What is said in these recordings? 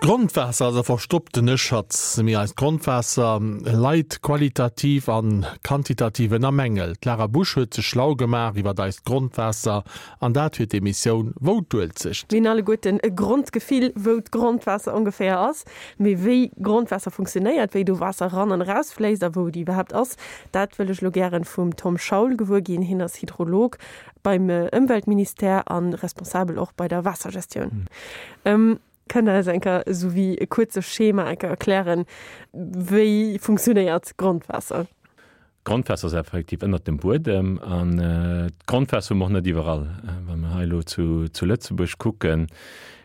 D'Grondwaasser ass e verstopptene Schatz. Mee eist Grondwaasser leit qualitativ an quantitativ ënner Mängel. D'Lara Busch huet sech schlau gemaach iwwert eist Grondwaasser an dat fir d'Emissioun Wou d'Uelzecht. Mir hunn alleguerten e Grondgefill, wou d'Grondwaasser ongeféier ass. Mee wéi Grondwaasser funktionéiert, wéi do Waasser eran an erausfléisst a wou et iwwerhaapt ass, dat wëll ech elo gären vum Tom Schaul gewuer ginn. Hien ass Hydrolog beim Ëmweltministère a responsabel och bei der Waassergestioun. Kënnt Der eis eng Kéier esou wéi e kuerze Schema eng Kéier erklären, wéi funktionéiert Grondwaasser? D'Grondwaasser ass effektiv ënnert dem Buedem an d'Grondwaasser hu mer och net iwwerall. Wa mer hei elo zu Lëtzebuerg kucken,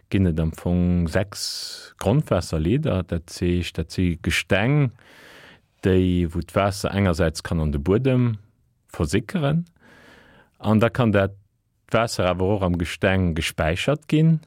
ginn et am Fong 6 Grondwaasserleeder. Dat heescht, dat si Gesteng, déi, wou d'Waasser engersäits kann an de Buedem versickeren an da kann dat Waasser awer och am Gesteng gespäichert ginn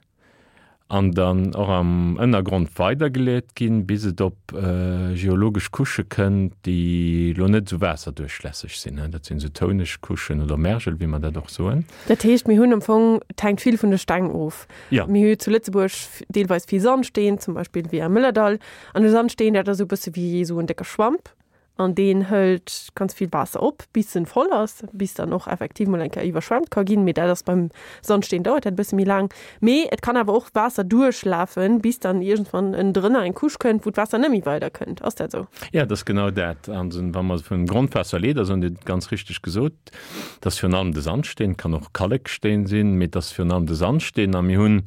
an dann och am Ënnergrond weidergeleet ginn, bis et op geologesch Couchë kënnt, déi elo net esou waasserduerchlässeg sinn. Dat sinn esou touneg Couchen oder Mergel, wéi mer dat och soen. Dat heescht, mir hunn am Fong, et hänkt vill vun de Steng of. Jo. Mir hu zu Lëtzebuerg deelweis vill Sandsteen, zum Beispill wéi am Mëllerdall. An de Sandsteen, dat ass esou e bësse wéi esou en décke Schwamp. An deen hëlt ganz vill Waasser op, bis en voll ass, bis dann och effektiv mol eng Kéier iwwerschwemmt ka ginn. Mee dat ass beim Sandsteen, dauert dat e bësse méi laang. Mee et kann awer och Waasser duerchlafen, bis dann iergendwann ënnendrënner eng Couche kënnt, wou d'Waasser net méi weider kënnt. Ass dat esou? Jo, dat ass genau dat. An wa mer vun Grondwaasserleeder soen, Dir hutt et ganz richteg gesot, dat ass virun allem de Sandsteen, kann och Kalleksteen sinn, mee et ass virun allem de Sandsteen. A mir hunn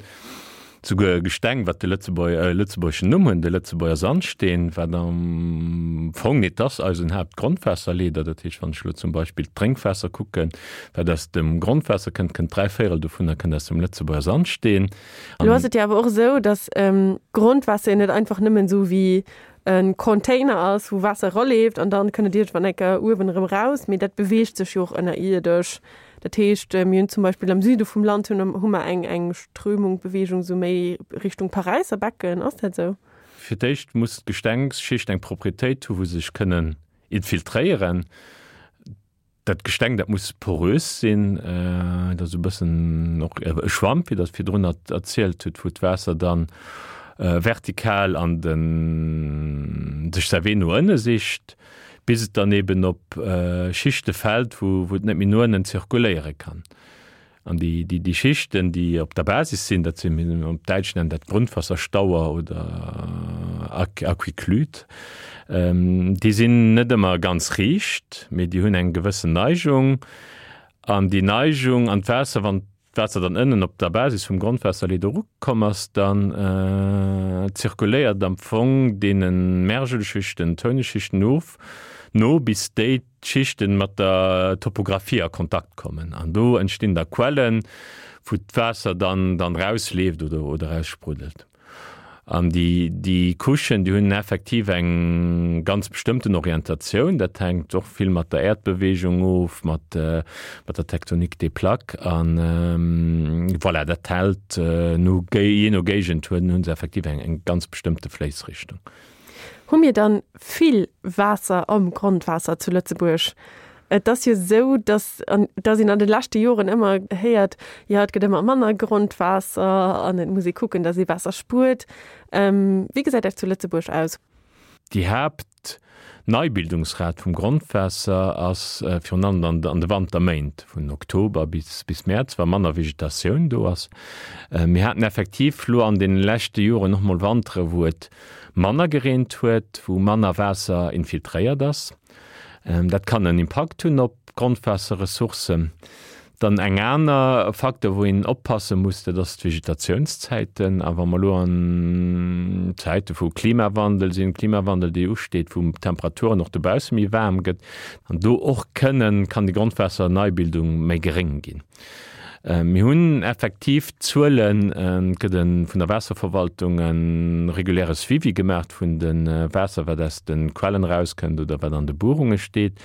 Souguer e Gesteng, wat de lëtzebuergeschen Numm hunn, de Lëtzebuerger Sandsteen, wat am Fong et ass eisen Haaptgrondwaasserleeder. Dat heescht, wann ech elo zum Beispill d'Drénkwaasser kucken, wat aus dem Grondwaasser kënnt, kënnt dräivéierel dovunner kënnt aus dem Lëtzebuerger Sandsteen. Elo ass et jo awer och esou, datt Grondwaasser jo net einfach nëmmen esou wéi e Container ass, wou Waasser eraleeft an dann kënnt et iergendwann eng Kéier uewen erëm eraus, mee dat beweegt sech jo och ënnerierdesch. Dat heescht, mir hunn zum Beispill am Süde vum Land hunn hu mer eng eng Strömung, Bewegung esou méi Richtung Paräisser Becken. Ass dat esou? Fir d'éischt muss d'Gestengsschicht eng Proprietéit hu wou se sech kënnen infiltréieren. Dat Gesteng dat muss porös sinn, dat ass e bëssen och e Schwamp, wéi Der et virdrun erzielt hutt, wou d'Waasser dann vertikal an de sech säi Wee no ënne sicht. bis et dann eben op Schichte fält, wou et net méi no ënnen zirkuléiere kann. An déi, déi, déi Schichten, déi op der Basis sinn, dat sinn, op Däitsch nennen dat Grundwasserstauer oder Aquiclude, déi sinn net ëmmer ganz riicht, mee déi hunn eng gewëssen Neigung. An déi Neigung an d'Waasser, wann d'Waasser dann ënnen op der Basis vum Grondwaasserleed erukomm ass, dann zirkuléiert am Fong deene Mergelschichten, Touneschichten of, no bis déi d'Schichten mat der Topographie a Kontakt kommen. An do entstinn da Quellen, wou d'Waasser dann dann rausleeft oder oder rausspruddelt. An déi, déi Couchen, déi hunn effektiv eng ganz bestëmmten Orientatioun. Dat hänkt och vill mat der Äerdbeweegung of, mat, mat der Tectonique des plaques. An voilà, dat hält no, jee no Géigend hunn, hu se effektiv eng, eng ganz bestëmmte Fléissrichtung. Hu mir dann vill Waasser am Grondwaasser zu Lëtzebuerg? Et ass jo esou, dass, dass een an de leschte Joren ëmmer héiert, jo et gëtt ëmmer manner Grondwaasser an et muss ee kucken, dass ee Waasser spuert. Wéi gesäit dat zu Lëtzebuerg aus? Déi Haaptneibildungsrat vum Grondwaasser ass virun allem an de Wanterméint, vun Oktober bis Mäerz, wa manner Vegetatioun do ass. Mir haten effektiv lo an deene leschte Joren och mol Wantere wou et manner gereent huet, wou manner Waasser infiltréiert ass. Dat kann en Impakt hunn op d'Grondwaasserressourcen. Dann eng aner Facteur, wou een oppasse muss, dat ass d'Vegetatiounszäiten. A wa mer elo an Zäite vu Klimawandel sinn, Klimawandel, dee usteet, wou d'Temperaturen och dobausse méi waarm gëtt, an do och kënnen, kann déi Grondwaasserneibildung méi geréng ginn. Mir hunn effektiv Zuelen, et gëtt e vun der Waasserverwaltung e reguläre Suivi gemaach vun dem Waasser, wat aus de Quellen erauskënnt oder wat an de Buerunge steet.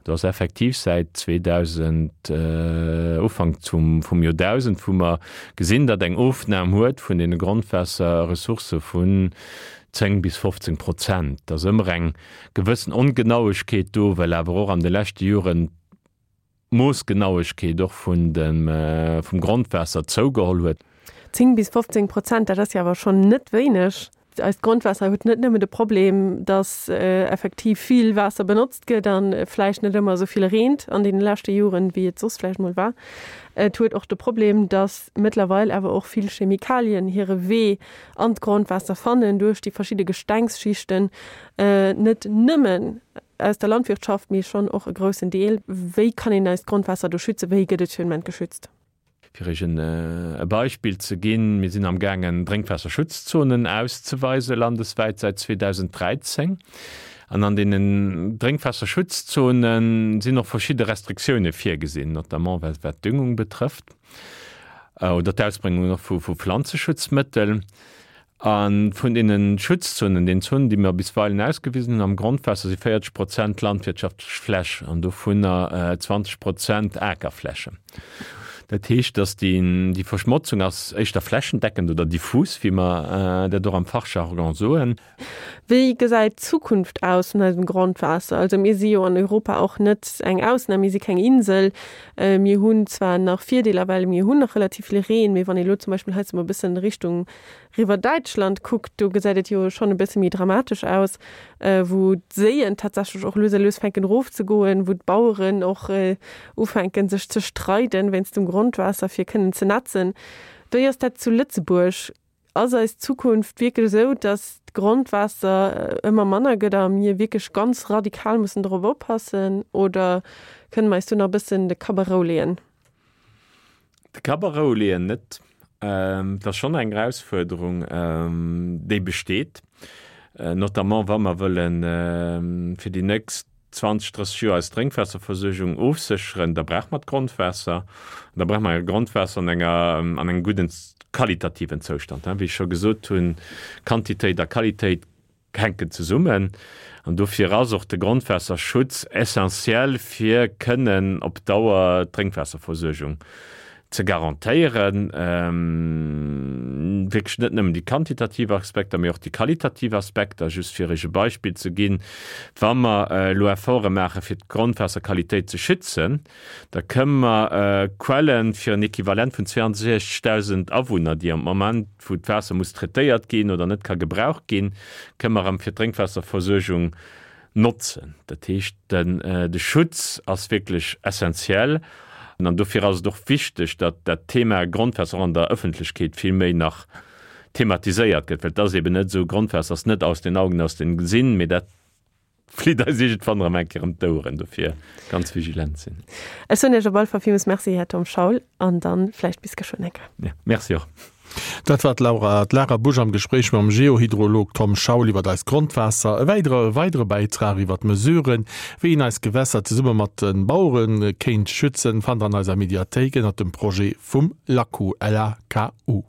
Do ass effektiv säit 2000, Ufank vum Joerdausend, wou mer gesinn, datt eng Ofnam huet vun deene Grondwaasserressourcë vun 10 bis 15 Prozent. Et ass ëmmer eng gewëssen Ongenauegkeet do, well awer och an de leschte Joren, Moossgenauegkeet och vun dem vum Grondwaasser zougeholl huet. 10 bis 15 Prozent, dat ass jo awer schonn net wéineg. Eist Grondwaasser huet net nëmmen de Problem, dass effektiv vill Waasser benotzt gëtt a vläicht net ëmmer esou vill reent an deene leschte Joren, wéi et soss vläicht mol war. Et huet och de Problem, dass mëttlerweil awer och vill Chemikalien hire Wee an d'Grondwaasser fannen duerch déi verschidde Gestengsschichten, net nëmmen aus der Landwirtschaft, mee schonn och e groussen Deel. Wéi kann een eist Grondwaasser do schützen? Wéi gëtt et fir den Moment geschützt? Fir Iech e Beispill ze ginn, Mir sinn am gaangen Drénkwaasserschutzzonen auszeweise landeswäit säit 2013. An an deenen Drénkwaasserschutzzone sinn och verschidde Restriktioune virgesinn, notamment wat d'Düngung betrëfft oder d'Ausbréngung och vu Pflanzeschutzmëttel. A vun deene Schutzzonen, den Zonen, déi mer bisweilen ausgewisen hunn am Grondwaasser, si 40 Prozent landwirtschaftlech Fläch an dovunner 20 Prozent Akerflächen. Dat heescht, dass déi Verschmotzung ass éischter flächendeckend oder diffus, wéi mer dat och am Fachjargon soen. Wéi gesäit d'Zukunft aus vun eisem Grondwaasser? Also mir si jo an Europa och net eng Ausnam, mir si keng Insel. Mir hunn zwar nach Virdeeler, well mir hunn nach relativ vill Reen, mee wann ee lo zum Beispill hei mol e bëssen Richtung riwwer Däitschland kuckt, do gesäit et jo schonn e bësse méi dramatesch aus, wou d'Séien tatsächlech och lues a lues fänken erofzegoen, wou d'Baueren och ufänken sech ze streiden wéinst dem Grondwaasser fir kënnen ze netzen. Wéi ass dat zu Lëtzebuerg? Ass eis Zukunft wierklech esou, dass d'Grondwaasser ëmmer manner gëtt a mir wierklech ganz radikal mussen dorop oppassen oder kënne mer eis do nach e bëssen de Kapp a Rou leeën? De Kapp a Rou leeën net. Et ass schonn eng Erausfuerderung, déi besteet, notamment wa mer wëllen fir déi nächst 20, 30 Joer eis Drénkwaasserversuergung ofsécheren, da brauche mer d'Grondwaasser. An da brauche mer e Grondwaasser an enger, an engem gudden qualitativen Zoustand. Wéi ech scho gesot hunn, Quantitéit a Qualitéit hänken zesummen. An dofir ass och de Grondwaasserschutz essentiell, fir kënnen op Dauer d'Drénkwaasserversuergung ze garantéieren, wierklech net nëmmen déi quantitativ Aspekter, mee och déi qualitativ Aspekter. Just fir Iech e Beispill ze ginn, Wa mer elo Efforte maache fir d'Grondwaasserqualitéit ze schützen, da kënnen mer Quellen fir en Equivalent vun 62.000 Awunner, déi am Moment, wou d'Waasser muss traitéiert ginn oder net ka gebraucht ginn, kënnen mer erëm fir d'Drénkwaasserversuergung notzen. Dat heescht, de Schutz ass wierklech essentiell an dofir ass et och wichteg, datt dat Thema Grondwaasser och an der Ëffentlechkeet vill méi nach thematiséiert gëtt, well et ass eben net esou, Grondwaasser ass net aus den Augen, aus dem Sinn, mee dat flitt eis iergendwann erëm eng Kéier ëm d'Oueren. Dofir ganz vigilant sinn. Ech soen Iech op alle Fall villmools Merci, Här Tom Schaul, an dann vläicht bis geschwënn eng Kéier. Ja, Merci och. Dat war d'Laura, d'Lara Busch am Gespréich mam Geohydrolog Tom Schaul iwwer eist Grondwaasser. E weidere weidere Bäitrag iwwer d'Mesuren, wéi een eis Gewässer zesumme mat de Bauere kéint schützen, fannt der an eiser Mediathéik ënnert dem Projet vum LAKU, LAKU.